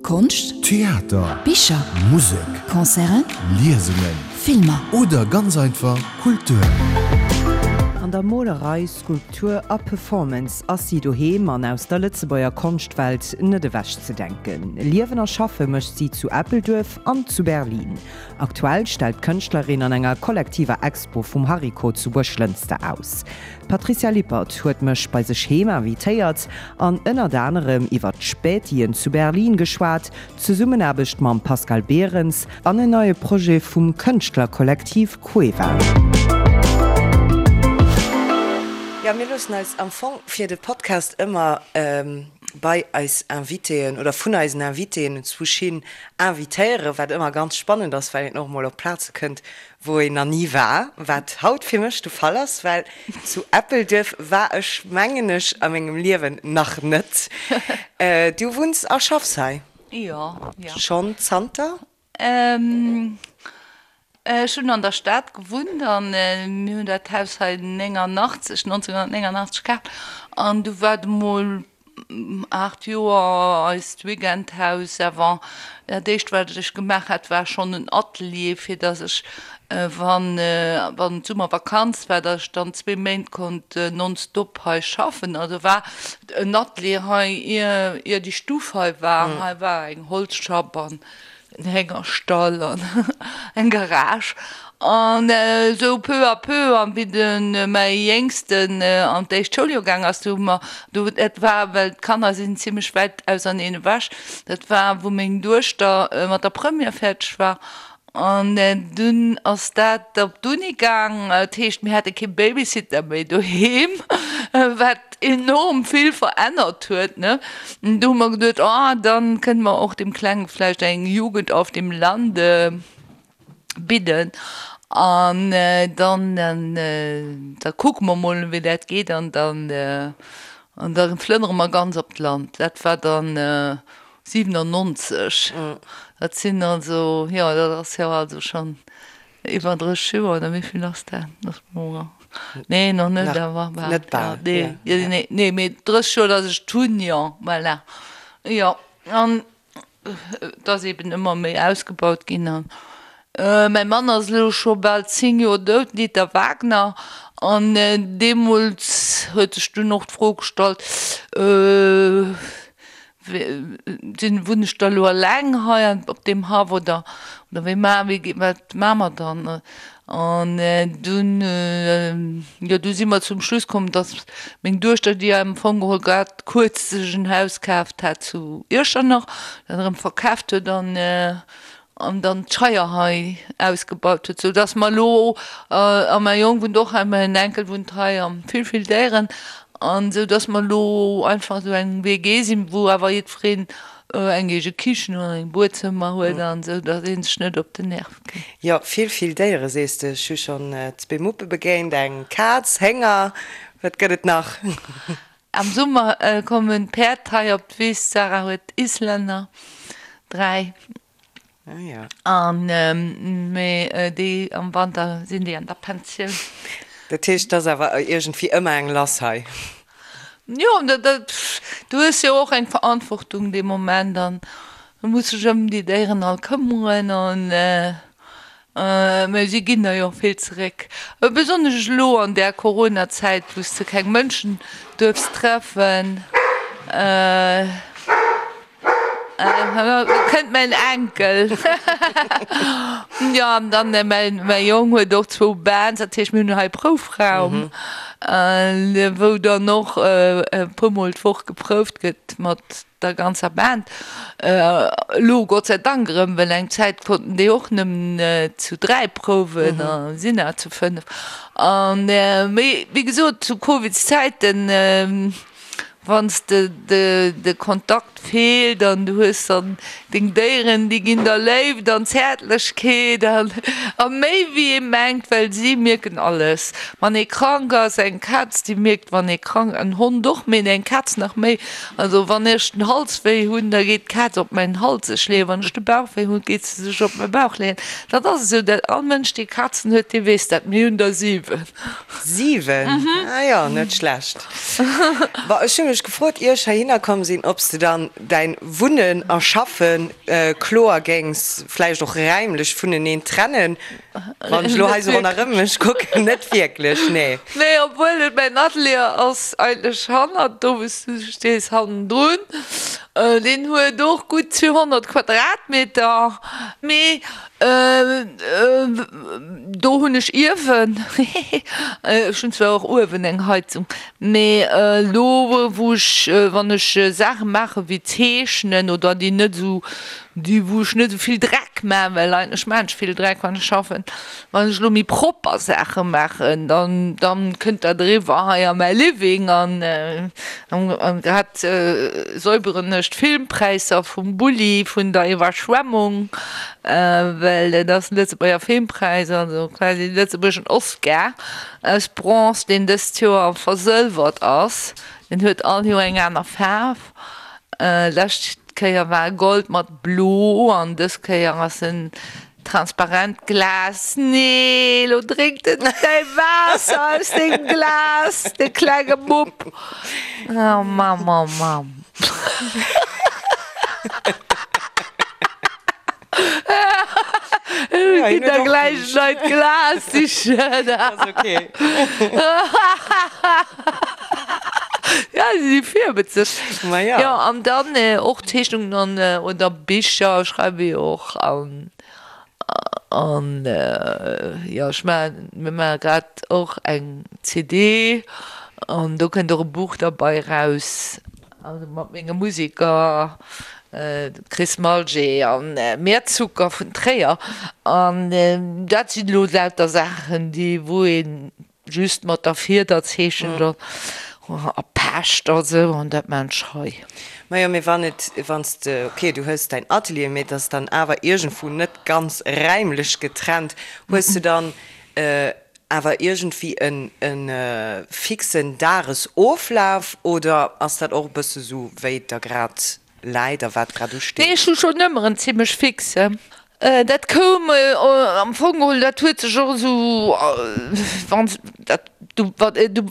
Konscht, Theater, Bicher, Musek, Concerten, Liesungen Filmer. Oder ganz einfach Kultur. An der Molerei, Skulptur a Performance ass si doheem an aus der Lëtzebuerger Konschtwelt net ewechzedenken. Liewen a schaffe mécht si zu Eppelduerf an zu Berlin. Aktuell stellt d'Kënschtlerin an enger kollektiver Expo vum Hariko zu Buerglënster aus. D'Patricia Lippert huet mech bei sech heem invitéiert an ënnert anerem iwwert d'Spätien zu Berlin geschwat, d'Zesummenaarbecht mam Pascal Berens an en neie Projet vum Kënschtlerkollektiv Cueva. Jo, mir loossen eis am Fong fir de Podcast ëmmer bei eis Invitéen oder vun eisen Invitéen enzwousch hin invitéieren, wat ëmmer ganz spannend ass, well een och emol op Plaze kënnt, wou een nach ni war, wat haut fir mech de Fall ass, well zu Eppelduerf war ech, mengen ech, a mengem Liewen nach net. Du wunns a schaffs hei? Jo, jo. Schonn zanter? Ech hunn an der Stad gewunnt an mir hunn dat Haus hei 89, 1989 kaaft an du war et emol 8 Joer eist Weekendhaus awer dat éischt wat ech gemaach hat war schonn en Atelier fir datt ech wann wann d'Summervakanz war datt ech dann zwee Méint konnt nonstop hei schaffen. Also war en Atelier hei ier ier déi Stuff hei war. Hei war eng Holzschapp an en Héngerstall an eng Garage an esou peu à peu an wéi de mäi Jéngsten an d'éischt Schouljoer gaang ass, du hu mer, du dat war well d'Kanner sinn zimlech wäit auserneen ewech, dat war wou meng Duechter mat der Première fäerdeg war an dunn ass dat op d'Uni gaang, dat heescht mir hate kee Babysitter méi doheem, wat enorm vill verännert huet, ne. Do hu mer geduet, oh, dann kënne mer och dem Klenge vläicht eng Jugend auf dem Lande bidden an dann, da kucke mer mol, wéi dat geet an dann, an da flënnere mer ganz op d'Land. Dat war dann 97. Dat sinn also, jo, dat ass jo also schonn Iwwer 30 Joer, oder wéi vill ass dat? Nee, nach net, awer bal. Net bal, nee. Nee, nee, mee 30 Joer, datt ech et hunn, jo, voilà. Jo, an et ass eben ëmmer méi ausgebaut ginn. An mäi Mann ass elo scho bal 10 Joer dout, den Dieter Wagner, an deemools huet sech dunn och d'Fro gestallt, Sinn, wunn ech da elo eleng hei op deem Haff oder oder wéi ma wéi wat maa mer dann? An dunn, jo du si mer zum Schluss komm, datt meng Duechter, déi am Fong geholl grad kuerz sech en Haus kaaft hat zu Iechternach, dat erëm verkaaft huet an an dann d'Scheier hei ausgebaut huet, sou dass mer elo, a mäi Jong wunnt och hei, mäin Enkel wunnt hei a vill, vill Déieren, an sou dass mer elo einfach esou eng WG sinn, wou awer jiddwereen eng eege Kichen an eng Buedzëmmer huet an esou, dass ee sech net op den Nerv geet. Jo, vill, vill Déiere sees de. Ech hu schonn zwee Muppe begéint, eng Kaz, Hénger, wat gëtt et nach? Am Summer kommen d'Päerd hei op d'Wiss. D'Sarah huet Islänner, 3, an mee déi am Wanter sinn déi an der Pensioun. Dat heescht, et ass awer iergendwéi ëmmer eng lass hei? Jo, du hues jo och eng Verantwortung dee Moment an du muss dech ëm déi Déieren all këmmeren an Mä si ginn der jo och vill zeréck. Besonnesch elo an där Corona-Zäit, wou s de keng Mënschen duerfs treffen. Elo kënnt mäin Enkel. Jo, an dann mäi Jong huet och zwou Bands, dat heescht mir hunn hei Proufraum, wou dann och e puermol d'Woch geprouft gëtt mat der ganzer Band. Elo Gott sei Dank erëm, well eng Zäit konnten déi och nëmmen zu 3 prouwen a sinn awer zu 5. An mee wéi gesot zu Covidszäiten, wann s de de Kontakt feelt an du hues dann deng Déieren, déi ginn der Léift an Zäertlechkeet an a méi wéi ee mengt, well si mierken alles. Wann ee krank ass, eng Kaz déi mierkt wann ee krank, en Hond och, mee eng Kaz nach méi, Also wann ech den Hals wéi hunn, da geet d'Kaz op mäin Hals sech leeën. Wann ech de Bauch wéi hunn, geet se sech op mäi Bauch leeën. Dat ass esou, dat all Mënsch, dee Kazen huet, dee weess dat. Mir hunn der 7. 7? Ah jo, net schlecht. Bon, ech hu. mech gefrot, ier ech heihinner komm sinn, ob s de dann däin Wunnen a Schaffen kloer géings vläicht och räimlech vuneneen trennen. Wann ech elo hei sou ronderëm mech kucken, net wierklech, nee. Nee, obwuel et mäin Atelier ass eigentlech hannert do wou s du stees, hannendrun. Deen huet och gutt 200 Quadratmeter, mee do hunn ech Iewen, hehe, ech hunn zwar och uewen eng Heizung, mee elo wou ech, wann ech Saache maache wéi zeechnen oder déi net esou Déi wou ech net esou vill Dreck maachen, well eigentlech maachen ech vill Dreck wann ech schaffen. Wann ech elo méi propper Saache maachen, dann dann kënnt dat eriwwer hei a mäi Living an an grad säuberen ech d'Filmpräisser vum Bulli vun der Iwwerschwemmung, well dat ass den Lëtzebuerger Filmpräis, also quasi de lëtzebuergeschen Oscar aus Bronze, deen dëst Joer versëlwert ass. Deen huet all Joer eng aner Faarf. Lescht Kéier war e Gold mat Blo an dës Kéier ass en transparent Glas. Nee, lo drénkt en däi Waasser aus dengem Glas, de klenge Mupp. Oh Mamm, oh Mamm. Ech ginn der gläich en neit Glas sichen. Ass ok. Ja, si si virwëtzeg. Ma ja. Jo, an dann och Zeechnungen an, oder Bicher schreiwe jo och an, an jo, ech maachen, mir maache grad och eng CD an do kënnt och e Buch derbei eraus. Also mat menge Museker, dem Chris Malger an Meerzucker vun Tréier. An dat sinn elo lauter Saachen, déi wou ee just mat der Fieder zeechent a pecht a sou, an dat maan ech hei. Majo, mee wann et, wann s de, ok, du hues däin Atelier, mee et ass dann awer iergendwou net ganz räimlech getrennt, hues de dann Awer iergendwéi en e fixen Dagesoflaf oder ass dat och e bësse sou wéi et der grad läit a wat grad usteet? Nee, ech hu schonn ëmmer en zimmlech fixen. Dat koum am Fong geholl, dat huet sech och esou, wann s dat du,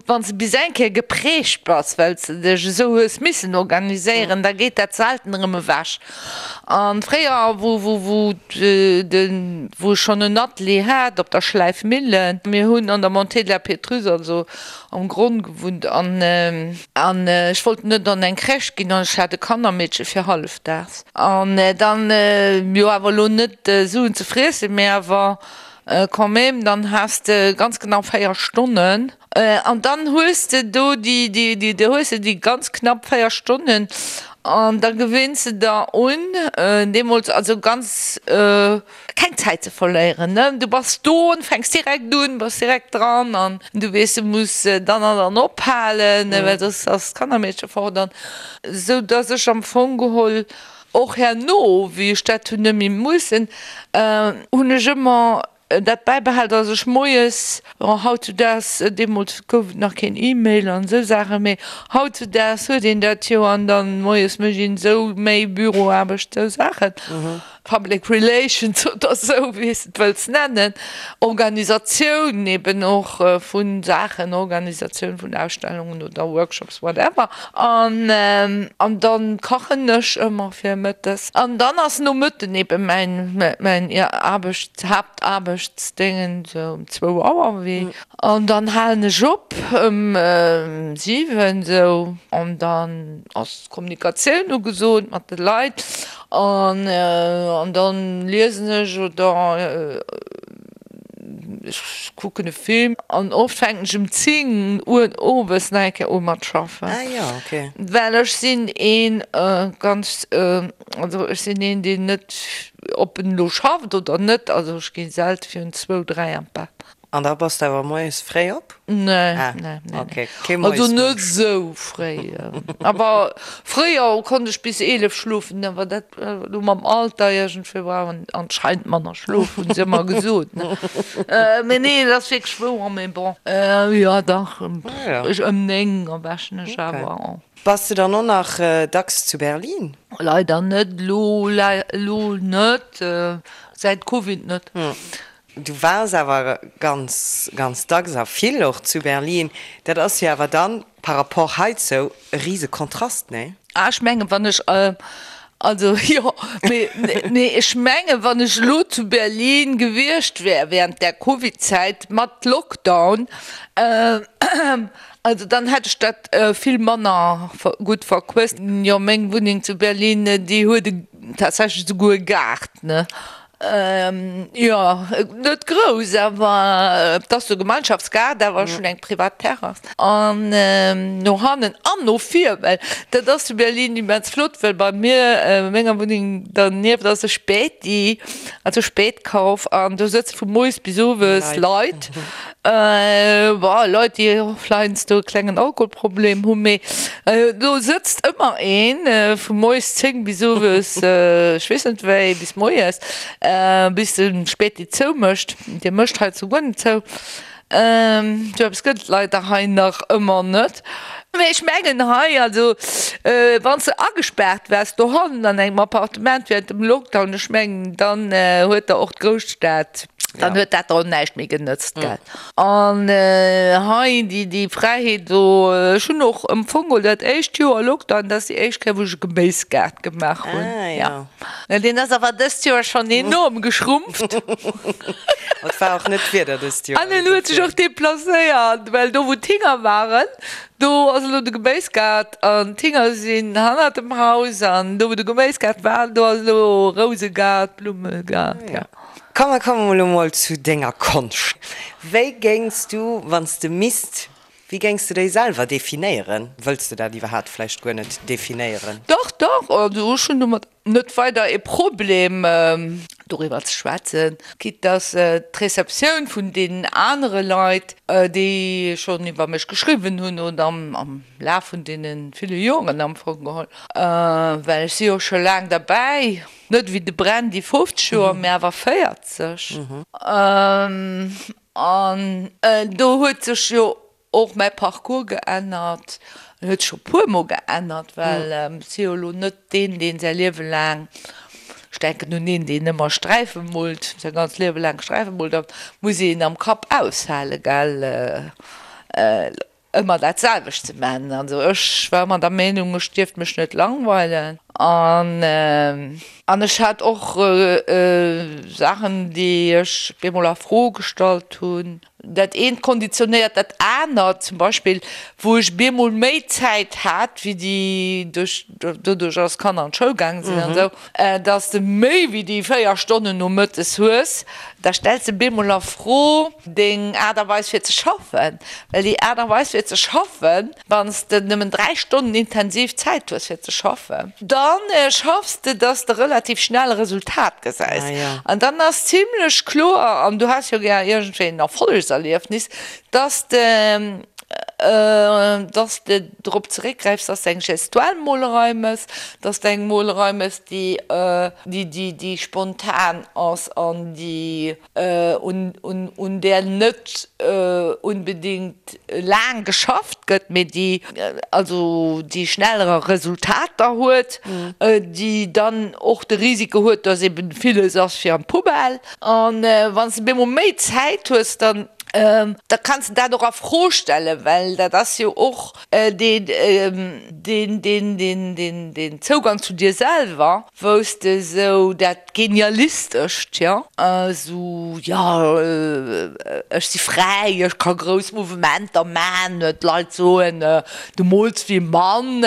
wann s de bis eng Kéier geprägt bass, well s de dech esou hues missen organiséieren, da geet dat selten erëm ewech. An fréier, wou, wou, wou de, wou ech schonn en Atelier hat op der Schläifmillen, mir hunn an der Montée de la Pétrusse, also am Gronn gewunnt, an, an ech wollt net an eng Crèche ginn an ech hat e Kannermeedche fir hallefdaags. An dann, jo awer elo net Suen ze friessen, mä awer quand même, dann has de ganz genau 4 Stonnen. An dann hues de do déi, déi, déi, do hues de déi ganz knapp 4 Stonnen an da gewinns de der un, deemools also ganz, keng Zäit ze verléieren, ne. Du bass do an fänks direkt un, bass direkt dran an du weess, du muss dann an dann ophalen, well soss ass d'Kannermeedche fort an esou dass ech am Fong geholl och herno, wéi ech dat hunn net méi mussen, hunn ech ëmmer dat bäibehal, dass ech moies, bon hautzudaags, deemools gouf et nach keen E-Mail an esou Saachen, mee hautzudaags huet een dat jo an dann moies mécht een esou méi Büroaarbecht, esou Saachen, Public Relations oder esou, wéi s de et wëlls nennen, Organisatioun eben och vu Saachen, Organisatioun vun Ausstellungen oder Workshops, whatever. An an dann kachen ech ëmmer fir mëttes. An dann ass nomëtten eben mäin mäin Aarbecht, Haaptaarbechtsdéngen sou um zwou Auer wéi. An dann halen ech op ëm 7 sou an dann ass Kommunikatioun ugesot mat de Leit an an dann liesen ech oder Ech kucken e Film an oft fänken ech um 10 Uer owes nach eng Kéier u mat schaffen. Ah jo, ok. Well ech sinn een ganz, also ech sinn een deen net, ob en elo schafft oder net, also ech gi selte virun zwou, dräi an d'Bett. An da bass de awer moies fréi op? Nee, nee, nee. Ok, kee Also net esou fréi. Awer fréier konnt ech bis 11 schlofen, awer dat elo mam Alter iergendwéi brauch een anscheinend manner Schlof, hunn se ëmmer gesot, ne. Mee nee, dat ass wierklech wouer, mee bon. Jo, dach, ech ëm 9 erwächen ech awer. Bass de dann och nach dacks zu Berlin? Leider net, elo, elo net, säit Covid net. Du waars awer ganz, ganz dacks a vill och zu Berlin. Dat ass jo awer dann par rapport heizou e rise Kontrast, nee? Ah, ech mengen, wann ech, also jo, mee, nee, ech mengen, wann ech elo zu Berlin gewiescht wär während där Covid-Zäit mat Lockdown, also dann hätt ech dat vill manner gutt verquësst. Jo, meng Wunneng zu Berlin, déi huet tatsächlech esouguer e Gaart, ne? Jo, net grouss, awer et ass e Gemeinschaftsgaart, awer ech hunn eng privat Terrass. An no hannen an no vir, well dat ass zu Berlin immens flott, well bei mir, menger Wunneng dernieft ass e Späti, also Spätkauf, an do sëtze vu moies bis owes Leit. Bon, Leit, déi och heiansdo e klengen Alkoholproblem hunn, mee do sëtzt ëmmer een, vu moies 10 bis owes ech weess net wéi, bis moies, bis de Späti zoumécht. Dee mécht hei zu guer net zou. Sou eppes gëtt et leider hei nach ëmmer net. Mee ech mengen hei, also wann s de agespaart waars dohannen an engem Appartement während dem Lockdown, ech mengen, dann huet der och d'Grousstad, Dann huet dat der och näischt méi genëtzt, gell. An hei déi, déi Fräiheet do, ech hunn och am Fong geholl dat éischt Joer Lockdown, dat ass déi éischt Kéier wou ech e Geméisgaart gemaach hunn. Ah jo. Ja. Deen ass awer dëst Joer schonn enorm geschrumpft. Et war och net d'Wieder dëst Joer. An en huet sech och deplacéiert, well do wou d'Hinger waren, do ass elo de Geméisgaart an d'Hinger sinn hannert dem Haus an do wou de Geméisgaart war, do ass elo Rousegaart, Blummegaart, ja. Komm, mer kommen elo mol zu denger Konscht. Wéi géings du, wann s de misst, wéi géings de déi selwer definéieren? Wëlls de dat iwwerhaapt vläicht guer net definéieren? Dach, dach, also ech hunn domat net weider e Problem doriwwer ze schwätzen, quitte dass d'Receptioun vun deenen anere Leit, déi schonn iwwer mech geschriwwen hunn oder am Laf vun deene ville Joren am Fong geholl, well ech si jo scho laang derbäi, Net ewéi de Brandy 50 Joer, mä awer 40. An do huet sech jo och mäi Parcours geännert. En huet sech scho puermol geännert, well ech si jo elo net deen, deen säi Liewe laang, ech denken un een, deen ëmmer Sträife moolt, säi ganzt Liewe laang Sträife moolt, da muss een am Kapp aushalen, gell. Ëmmer dat selwecht ze man. Also ech war ëmmer der Meenung, ech dierft mech net langweilen an an ech hat och Saachen, déi ech bemol a Fro gestallt hunn. Dat eent konditionéiert dat anert. Zum Beispill wou ech bemol méi Zäit hat wéi déi duerch doduerch dass d'Kanner an d'Schoul gaange sinn an esou, dass de méi wéi déi 4 Stonnen nomëttes hues, da stells de bemol a Fro deng Aart a Weis fir ze schaffen, well déi Aart a Weis fir ze schaffen, wann s de nëmmen 3 Stonnen intensiv Zäit hues fir ze schaffen, da schaffs de, dass de relativ schnell e Resultat gesäis an dann ass zimlech kloer, an du has jo gär iergendwéi en Erfollegserliefnis, dass de dass de drop zeréckgräifs, dass de eng gestuell Molerei mëss, dass de eng Molerei mëss, déi déi déi spontan ass an déi un där net unbedingt laang geschafft gëtt, mee déi also déi schnellere Resultater huet, déi dann och de Risiko huet, dass eben villes ass fir an d'Poubelle. An wann s de bemol méi Zäit hues, dann da kanns de dat och a Fro stellen, well dat ass jo och deen deen Zougang zu dir selwer. Wou s de esou dat Genialistescht, jo, esou, jo, ech si fräi, ech ka grouss Mouvementer man, d'Leit soen, du mools wéi e Mann,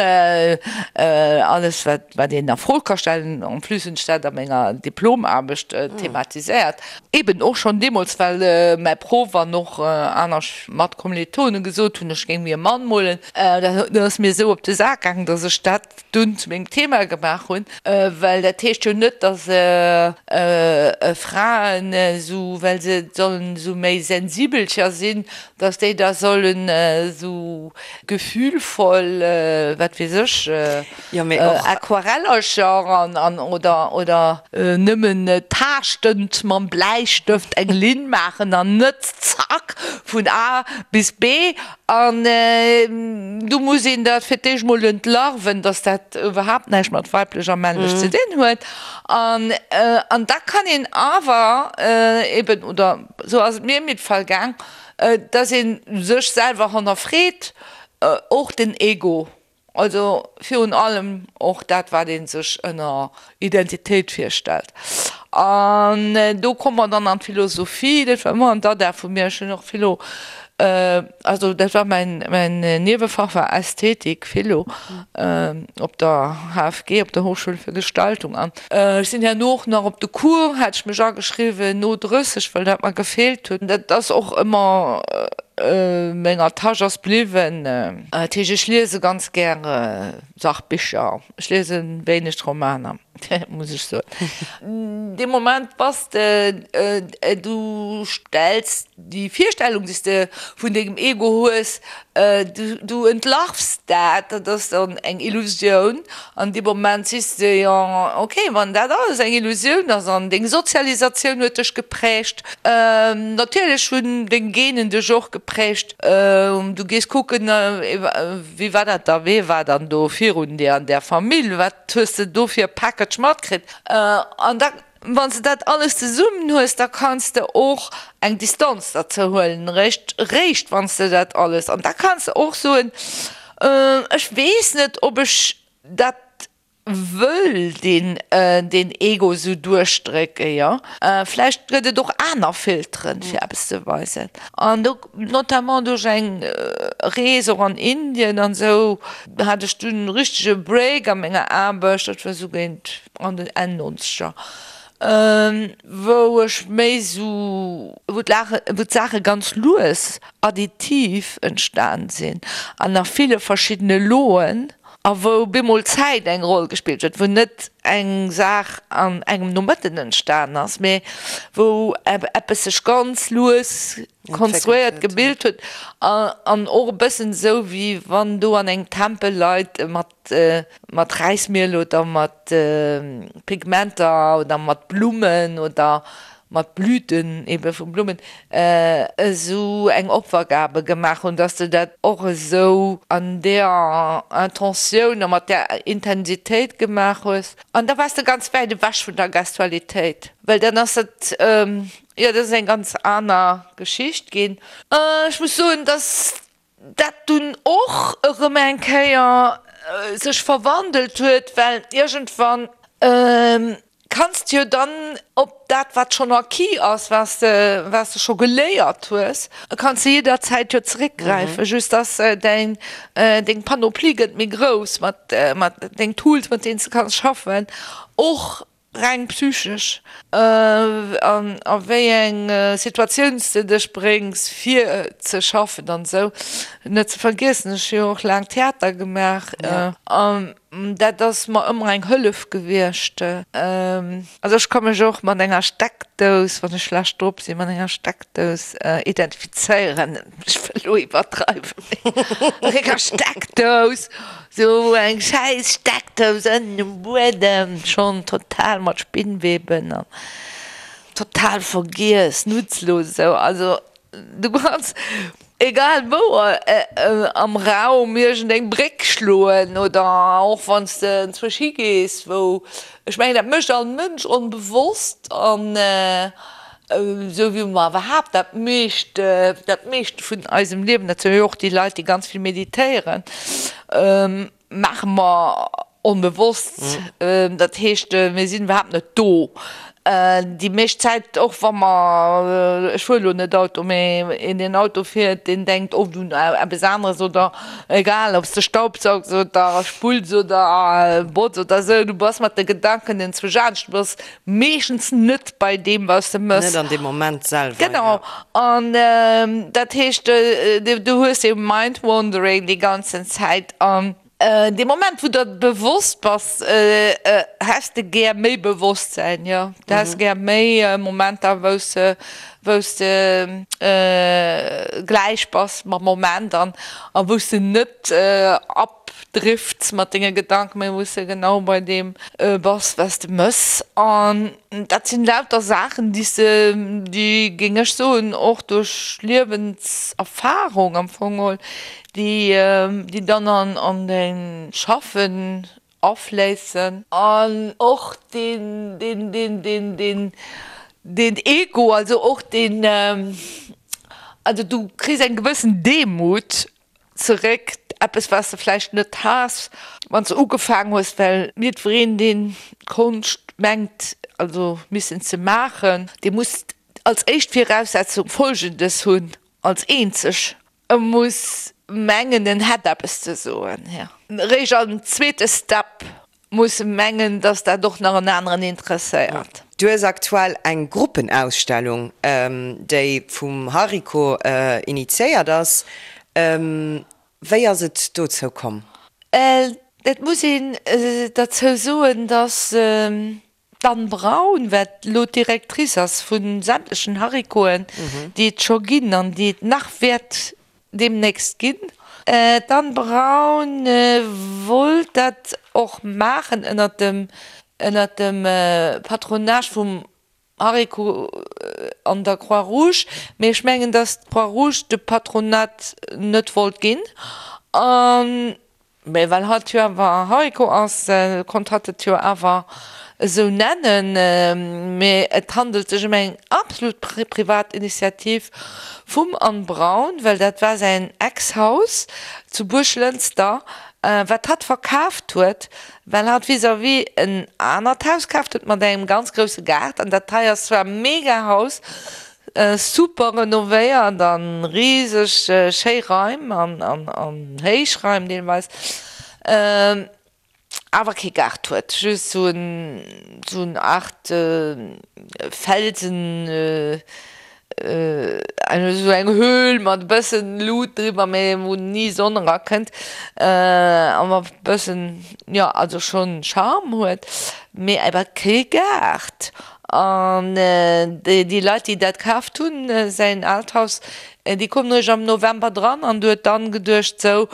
alles wat wat een a Fro ka stellen. En plus hunn ech dat a menger Diplomaarbecht thematiséiert, eben och schonn deemools, well mäi Proff an och aner Matkommilitone gesot hunn, ech géing wéi e Mann molen. Dat ass mir esou op de Sak gaangen, datt ech dat dunn zu mengem Thema gemaach hunn, well dat heescht jo net, datt Fraen esou, well se sollen esou méi sensibelcher sinn, datt déi da sollen esou gefühlvoll, wat weess ech, Aquarellercher an oder oder nëmmen taaschtend mam Bläistëft eng Linn maachen an net. Zack, vun A bis B. An do muss een dat fir d'éischt mol entlarven, dass dat iwwerhaapt näischt mat weiblech a männlech ze dinn huet. An, an da kann een awer eben, oder esou ass et mir am Fall gaang, dass ee sech selwer hannerfreet, och den Ego. Also virun allem och dat, wat ee sech ënner Identitéit virstellt. An do komme mer dann an d'Philosophie, dat war ëmmer en Dada vu mir, ech hunn och Philo, also dat war mäin, mäin Niewefach war Ästhetik, Philo, op der HFG, op der Hochschule für Gestaltung. An ech sinn herno och nach op de Cours, hat ech mech ageschriwwen, no 30, well dat mer gefeelt huet. Dat ass och ëmmer menger Täsch ass bliwwen. Dat heescht, ech liese ganz gäre Sachbicher, ech liese wéineg Romaner, muss ech soen. Dee Moment bass de, du stells déi Virstellung, déi s de vun dengem Ego hues, du entlarvs dat, dat ass dann eng Illusioun. An dee Moment sees de, jo, okay, wann dat alles eng Illusioun ass an deng Sozialisatioun huet dech geprägt, natierlech hunn deng Genen dech och geprägt, du gees kucken, wéi war dat da, wee war dann do virun dir an där Famill, wat hues de do fir e Package matkritt? An da, wann s de dat alles zesummen hues, da kanns de och eng Distanz derzou huelen, réischt, réischt wann s de dat alles, an da kanns de och soen, Ech weess net, ob ech dat wëll, deen, deen Ego esou duerchdrécken, jo. Vläicht gëtt et och aner Filteren, fir eppes ze weisen. An do, notamment duerch eng Rees och an Indien an esou, hat ech dunn e richtege Break a menger Aarbecht, dat war esou géint an den Enn Nonzeger, wou ech méi esou, wou d'Saache ganz lues additiv entstan sinn an a ville verschiddene Loen a wou bemol Zäit eng Roll gespillt huet, wou net eng Saach an engem Nomëtten entstan ass, mee wou eppes sech ganz lues konstruéiert, gebilt huet an och e bëssen esou, wéi wann do an engem Tempel Leit mat mat Räismiel oder mat Pigmenter oder mat Blummen oder mat Blüten ebe vu Blummen esou eng Opfergabe gemaach hunn, dass de dat och esou an deeër Intentioun a mat där Intensitéit gemaach hues. An da waars de ganz wäit ewech vun der Gestualitéit, well dann ass dat, jo, dat ass eng ganz aner Geschicht ginn. Ech muss soen, dass dat dunn och erëm eng Kéier sech verwandelt huet, well iergendwann kanns de jo dann op dat, wat schonn acquis ass, wat s de, wat s de scho geléiert hues, kanns de jidderzäit jo zeréckgräifen, just dass däin, deng Panoplie gëtt méi grouss mat, mat deng Tools, mat deenen s de kanns schaffen, och Reng psychesch, an a wéi eng Situatioun s de dech bréngs fir ze schaffen an esou. Net ze vergiessen, ech hu jo och laang Theater gemaach an dat ass mer ëmmer eng Hëllef gewiescht. Also ech ka mech och mat enger Steckdous, wann ech schlecht drop sinn, mat enger Steckdous identifizéieren. Ech wëll elo iwwerdreiwen, mee mat enger Steckdous. Sou eng schäiss Steckdous ënnen um Buedem, schonn total mat Spinnweben an total vergiess, nutzlos esou. Also du kanns egal wou am Raum iergendeng Bréck schloen oder och wann s de enzwousch higees wou, ech mengen dat mécht all Mënsch onbewosst an Esou wéi mer iwwerhaapt dat meescht, dat meescht vun eisem Liewen, dat soe jo och déi Leit, déi ganz vill meditéieren, maache mer onbewosst. Dat heescht, mir sinn iwwerhaapt net do déi meescht Zäit, och wa mer, ech fuere lo net Auto, mee een, deen Auto fiert, deen denkt oft un eppes aneres oder egal, ob s de staubsaugs oder spulls oder botz oder esou, du bass mat de Gedanken enzwousch anescht, du bass meeschtens net bei deem, wat s de mëss. Net an deem Moment selwer, jo. Genau. An dat heescht, du hues dee Mind wandering déi ganzen Zäit. An dee Moment, wou der bewosst bass, häss de gär méi Bewosstsäin, jo. Du häss gär méi Momenter, wou s de. Wou s de gläich bass mam Moment an a wou s de net abdrifts mat denge Gedanken, mä wou s de genau bei deem bass, wat s de mëss. An dat sinn lauter Saachen, déi s de, déi, géing ech soen, och duerch Liewenserfarung am Fong geholl, déi, déi dann an däin Schaffen afléissen. An och deen, deen, deen, deen, deen, deen Ego, also och deen, also du kriss eng gewëssen Demut zeréck, eppes wat s de vläicht net has, wann s de ugefaangen hues, well jiddwereen, deen Konscht mengt, also missen ze maachen, dee muss als éischt Viraussetzung Folgendes hunn, als eenzeg, E muss mengen, en hätt eppes ze soen. Eréischt am zweete Step muss e mengen, datt dat och nach en aneren interesséiert. Du hues aktuell eng Gruppenausstellung, déi vum Hariko initiéiert ass. Wéi ass et dozou komm? Et muss een derzou soen, datt D'Anne Braun, wat elo d'Directrice ass vu sämtlechen Harikoen, déi et scho ginn an déi et nach wäert deemnächst ginn, d'Anne Braun wollt dat och maachen ënnert dem, ënnert dem Patronage vum Hariko an der Croix-Rouge, mee ech mengen, datt d'Croix-Rouge de Patronat net wollt ginn an Mee well hatt jo awer Hariko ass, konnt hatt et jo awer esou nennen. Mee et handelt sech ëm eng absolut privat Initiativ vum Anne Braun, well dat war säin Ex-Haus zu Buerglënster, wat hatt verkaaft huet, well hatt vis-à-vis en anert Haus kaaft huet mat engem ganz grousse Gaart. An dat hei ass zwar e mega Haus, Super renovéiert an rieseg schéi Raim an héich Raim deelweis, awer kee Gaart huet, just sou en Art Felsen, sou eng Höhl mat e bëssen Lut driwwer, mee wou ni Sonn erakënnt a mat bëssen, jo also schonn Charme huet, mee awer kee Gaart. An déi Leit, déi dat kaaft hunn, säin aalt Haus, déi koumen eréischt am November dran. An du huet dann geduecht, sou,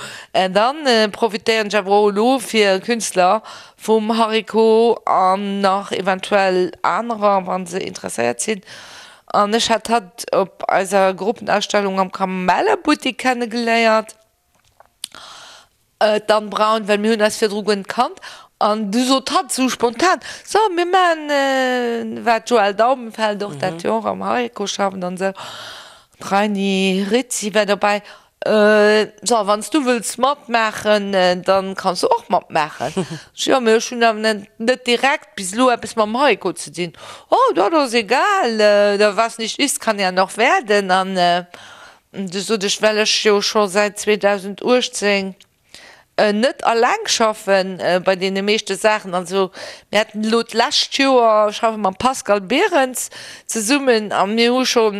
dann profitéieren ech awer och elo fir Künstler vum Hariko an nach eventuell anerer, wa se interesséiert sinn. An ech hat hatt op eiser Gruppenausstellung am Kamellebuttik kennegeléiert. D'Anne Braun, Well mir hunn eis virdru guer net kannt an du sot hatt esou spontan, So, mir maachen, war d'Joëlle Daubenfeld och dat jo och am Hariko schafft an esou, d'Reiny Rizzi war dobäi, so, wann s du wëlls matmaachen, dann kanns du och matmaachen. Ech, Jo, mee ech hunn awer net direkt bis elo eppes mam Hariko ze dinn. Oh, dat ass egal, was nicht ist, kann ja noch werden. An Du sot ech, well ech jo scho säit 2018 net alleng schaffen bei deene meeschte Saachen. Also mir haten elo d'lescht Joer, schaffe mam Pascal Berens zesummen a mir hu scho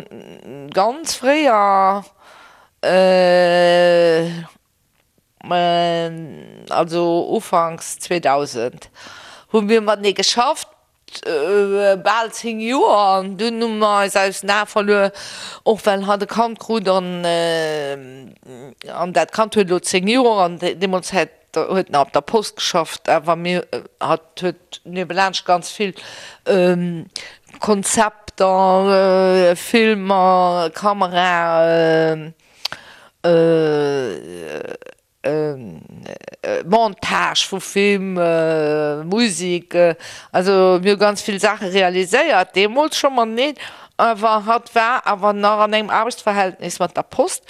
ganz fréier, also ufanks 2000 hu mir matenee geschafft. Bal 10 Joer an dunn hu mer eis aus den Ae verluer, och well hatt e Kand krut an an dat Kand huet elo 10 Joer an deemools hätt huet nach op der Post geschafft, awer mir hatt huet niewelaanscht ganz vill Konzepter, Filmer, Kamera. Montage vu Film, Musik, also mir hu ganz vill Saache realiséiert, deemools scho mateneen, awer hatt war awer nach an engem Aarbechtsverhältnis mat der Post.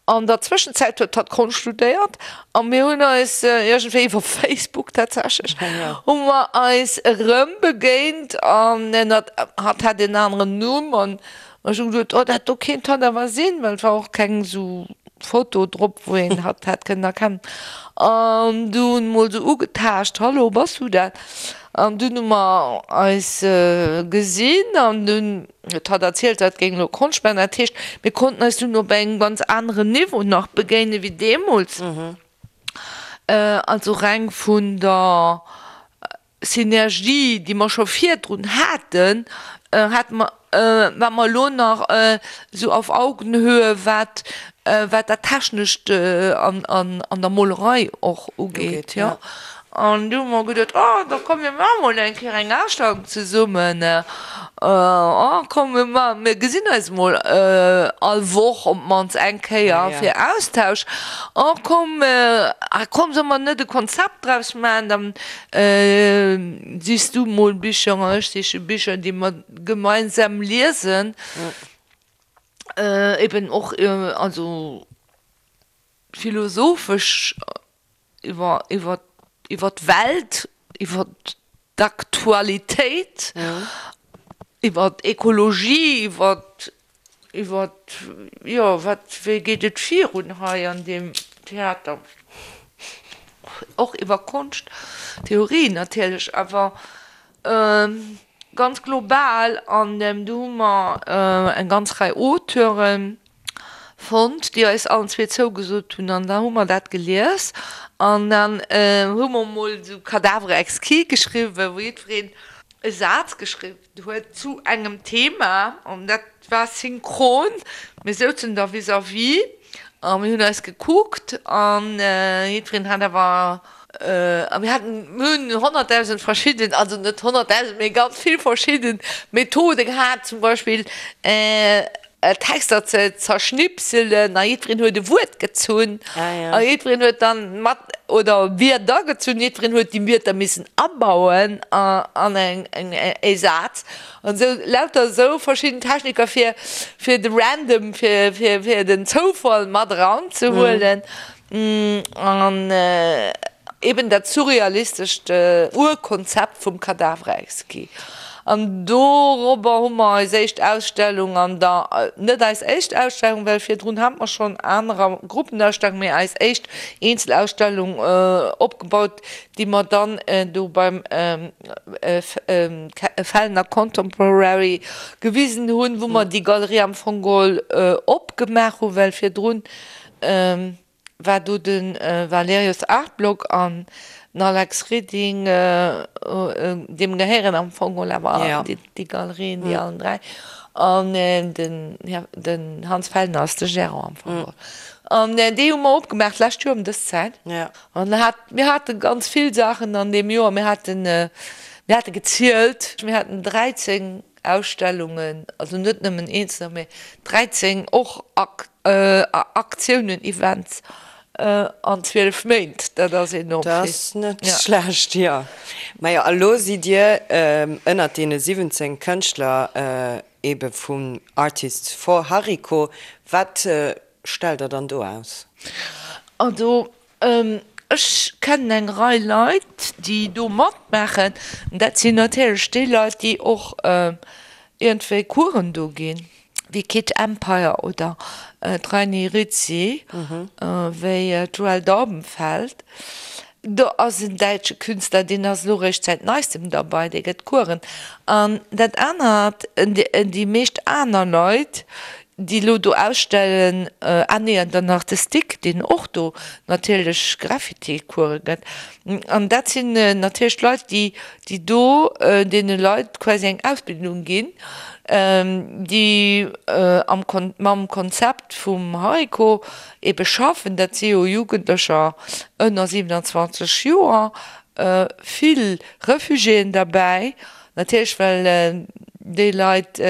An der Zwëschenzäit huet hatt Konscht studéiert a mir hunn eis iergendwéi iwwer Facebook tatsächlech hu mer eis erëm begéint an hatt hat en aneren Numm an Ech hu geduet, oh dat do kéint hatt awer sinn, well et war och keng esou Foto drop, wou een hatt hätt kënnen erkennen. An dunn mol esou ugetaascht, Hallo, bass du dat? An dunn hu mer eis gesinn an dunn huet hatt erzielt, hatt géing elo Konscht maachen. Dat heescht, mir konnten eis dunn op engem ganz aneren Niveau nach begéine wéi deemools. Also reng vun der Synergie, déi mer scho virdrun haten, hate mer. Wat mer elo nach esou auf Augenhöhe, wat wat dat Technescht an an der Molerei och ugeet, jo. An du hu mer geduet, oh da komm mir maache mol eng Kéier eng Ausstellung zesummen, oh komm mir ma mir gesinn eis mol all Woch op d'mannst eng Kéier fir Austausch, oh komm, ah komm solle mer net e Konzept draus maachen, dann sichs du mol Bicher an ech siche Bicher, déi mer gemeinsam liesen, eben och also philosophesch iwwer iwwer iwwer d'Welt, iwwer d'Aktualitéit, iwwer d'Ekologie, iwwer iwwer jo wat wéi geet et virun hei an deem Theater, och iwwer Konscht, Theorie natierlech, awer ganz global. An do hu mer eng ganz Rei Auteuren fonnt, déi eis allen zwee zougesot hunn, an da hu mer dat gelies an dann hu mer mol esou Cadavre exquis geschriwwen, wou jiddwereen e Saz geschriwwen huet zu engem Thema an dat war synchron, mir souzen da vis-à-vis a mir hunn eis gekuckt an jiddwereen hat awer, a mir haten, mir hunn 100.000 verschidden, also net 100.000, mee ganz vill verschidden Methode gehat, zum Beispill Texter ze zerschnipselen a jiddwereen huet e Wuert gezunn a jiddwereen huet dann mat, oder Wierder gezunn, jiddwereen huet déi Wierder missen abauen an eng e Saz an esou lauter esou verschidden Techniker fir fir de Random, fir fir fir den Zoufall mat eranzehuelen. An eben dat surrealistescht Urkonzept vum Cadavre exquis. An dorobber hu mer eis éischt Ausstellung an der, net eis éischt Ausstellung, well virdrun hate mer schonn anerer Gruppenausstellungen, mee eis éischt Eenzelausstellung opgebaut, déi mer dann do beim Fellner Contemporary gewisen hunn, wou mer déi Galerie am Fong geholl opgemaach hunn, well virdrun war do de Valerius Artblock an den Alex Reding, deem gehéieren am Fong geholl awer déi Galerien, déi allen 3. An den Hans Fellner ass de Gérant am Fong geholl. An déi hu mer opgemaach d'lescht Joer ëm dës Zäit. An mir hate ganz vill Saachen an deem Joer. Mir haten, mir hate gezielt, mir haten 13 Ausstellungen, also net nëmmen eenzeler, mee 13 och Aktiounen, Events an 12 Méint, dat ass enorm vill. Dat ass net schlecht, jo. Majo, a lo sidd Dir ënnert deene 17 Kënschtler ebe vum Artists for Hariko. Wat stellt Der dann do aus? Also Ech kennen eng Rei Leit, déi do matmaachen. Dat sinn natierlech déi Leit, déi och iergendwéi Coursen do ginn, wéi Kid Empire oder d'Reiny Rizzi, wéi d'Joëlle Daubenfeld. Do ass en däitsche Künstler, deen ass elo eréischt säit neistem derbei, dee gëtt Coursen. An dat anert, déi meescht aner Leit, déi elo do ausstellen, ah nee, an dann nach de Stick, deen och do natierlech Graffiti-Course gëtt. An dat sinn natierlech Leit, déi, déi do deene Leit quasi eng Ausbildung ginn, déi am Kon-, mam Konzept vum Hariko ebe schaffen. Dat si jo Jugendlecher ënner 27 Joer, vill Refugiéen derbäi, natierlech, well déi Leit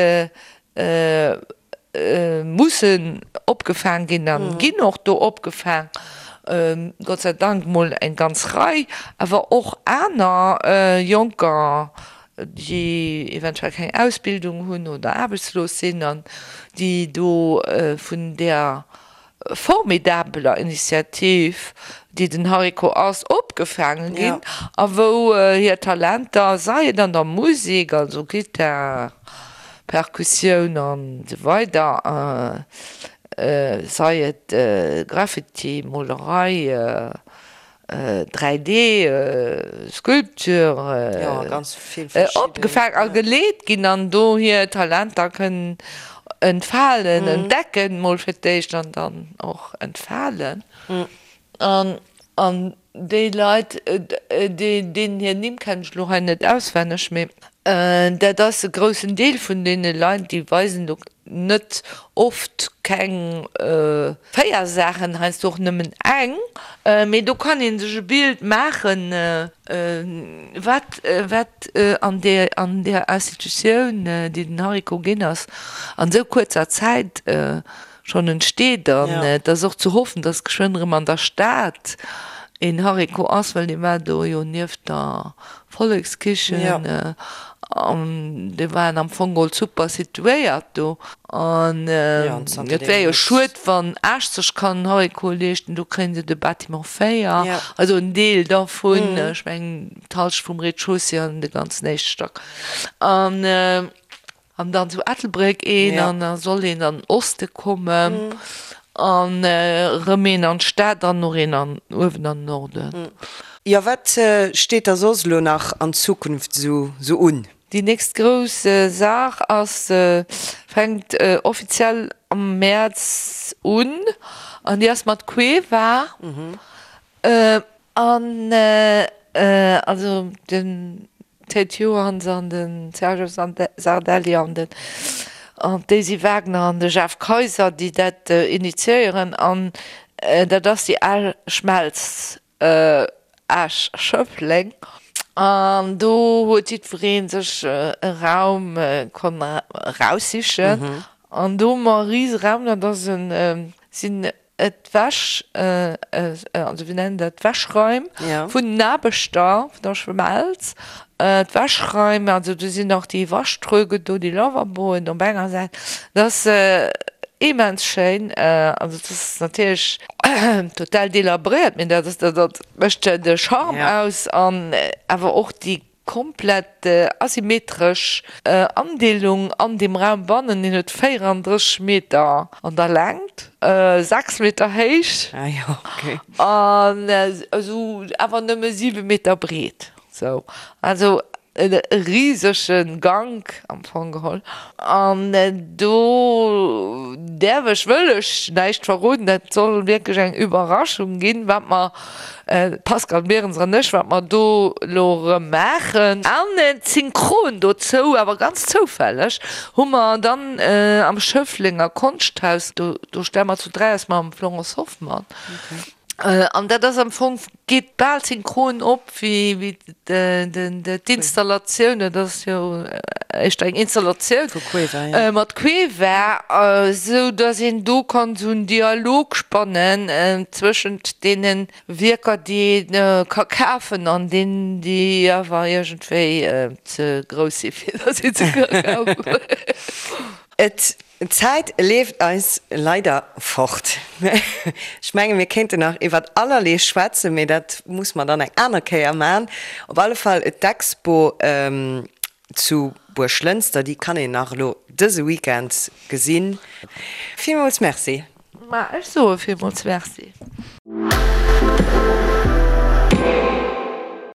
mussen opgefaang ginn a ginn och do opgefaang, Gott sei Dank mol eng ganz Rei, awer och aner Jonker, déi eventuell keng Ausbildung hunn oder aarbechtslos sinn an déi do vun där formidabeler Initiativ, déi den Hariko ass, opgefaange ginn a wou hir Talenter, sei et an der Musek, also Gittar, Perkussioun an esou weider, sei et Graffiti, Molerei, 3D Sculpture opgefaang a geleet ginn an do hir Talenter kënnen entfalen, entdecken mol fir d'éischt an dann och entfalen. An déi Leit, deenen hir Nimm kennen ech elo hei net auswenneg, mee. Dat ass e groussen Deel vun deene Leit, déi weisen do net oft keng 4 Saachen, heiansdo och nëmmen eng, mee do kann ee sech e Bild maachen, wat wat an där an där Institutioun, déi den Hariko ginn ass, an esou kuerzer Zäit schonn entsteet. An et ass och ze hoffen, datt geschwënn erëm an der Stad een Hariko ass, well dee war do jo nieft der Vollekskichen an déi waren am Fong geholl super situéiert do. An et wär jo schued, wann Esch sech kann en Hariko leeschten, do kréien se de Bâtiment 4, also en Deel dervun, ech mengen d'Halschent vum Rez-de-chaussée an de ganzen éischte Stack. An An dann zu Ettelbréck een an da soll een an den Oste kommen an erëm een an d'Stad an och een an uewen an den Norden. Jo, wat steet da soss elo nach an Zukunft esou un? Déi nächst grouss Saach ass, fänkt offiziell am Mäerz un an déi ass mat Cueva. An also den Ted Johans an de Sergio Sardelli an den an d'Daisy Wagner an de Jeff Kayser, déi dat initiéieren. An dat ass déi al Schmelz Esch-Schëffleng. An do huet jiddweree sech e Raum konnt eraussichen. An do hu mer e rise Raum, dat ass en, sinn D'Wäsch, also wéi nennen dat, d'Wäschraim vun den Aarbechter vun der Schmelz, d'Wäschraim, also do sinn och déi Waschtröge do, déi Lavaboen op enger Säit, dat ass immens schéin. Also dat ass natierlech total delabréiert, mee dat ass, dat mécht de Charme aus an awer och déi Komplett asymmetresch Andeelung an dem Raum bannen, deen huet 34 Meter an der Längt, 6 Meter héich an esou awer nëmme 7 Meter breet. Sou, also e risege Gank am Fong geholl. An do däerf ech, wëll ech näischt verroden, dat soll wierklech eng Überraschung ginn, wat mer D'Pascale Behrens an ech, wat mer do elo erëm maachen. An synchron dozou, awer ganz zoufälleg, hu mer dann am Schëfflenger Konschthaus, do do stelle mer zu 3 aus mam Florence Hoffmann, an dat ass am Fong, geet bal synchron op wéi wéi d'Installatioun, dat ass jo éischter eng Installatioun mat Cueva, esou datt een do kann esou en Dialog spannen zwëschent deene Wierker, déi ee ka kafen an deenen, déi awer iergendwéi ze grouss si fir datt ee se ka kafen. Et D'Zäit leeft eis leider fort. Ech menge mir kéinten nach iwwert allerlee schwätzen, mee dat muss mer dann eng aner Kéier man. Op alle Fall d'Expo zu Buerglënster, déi kann een nach elo dëse Weekend gesinn. Villmools Merci. Ma ech soe villmools Merci.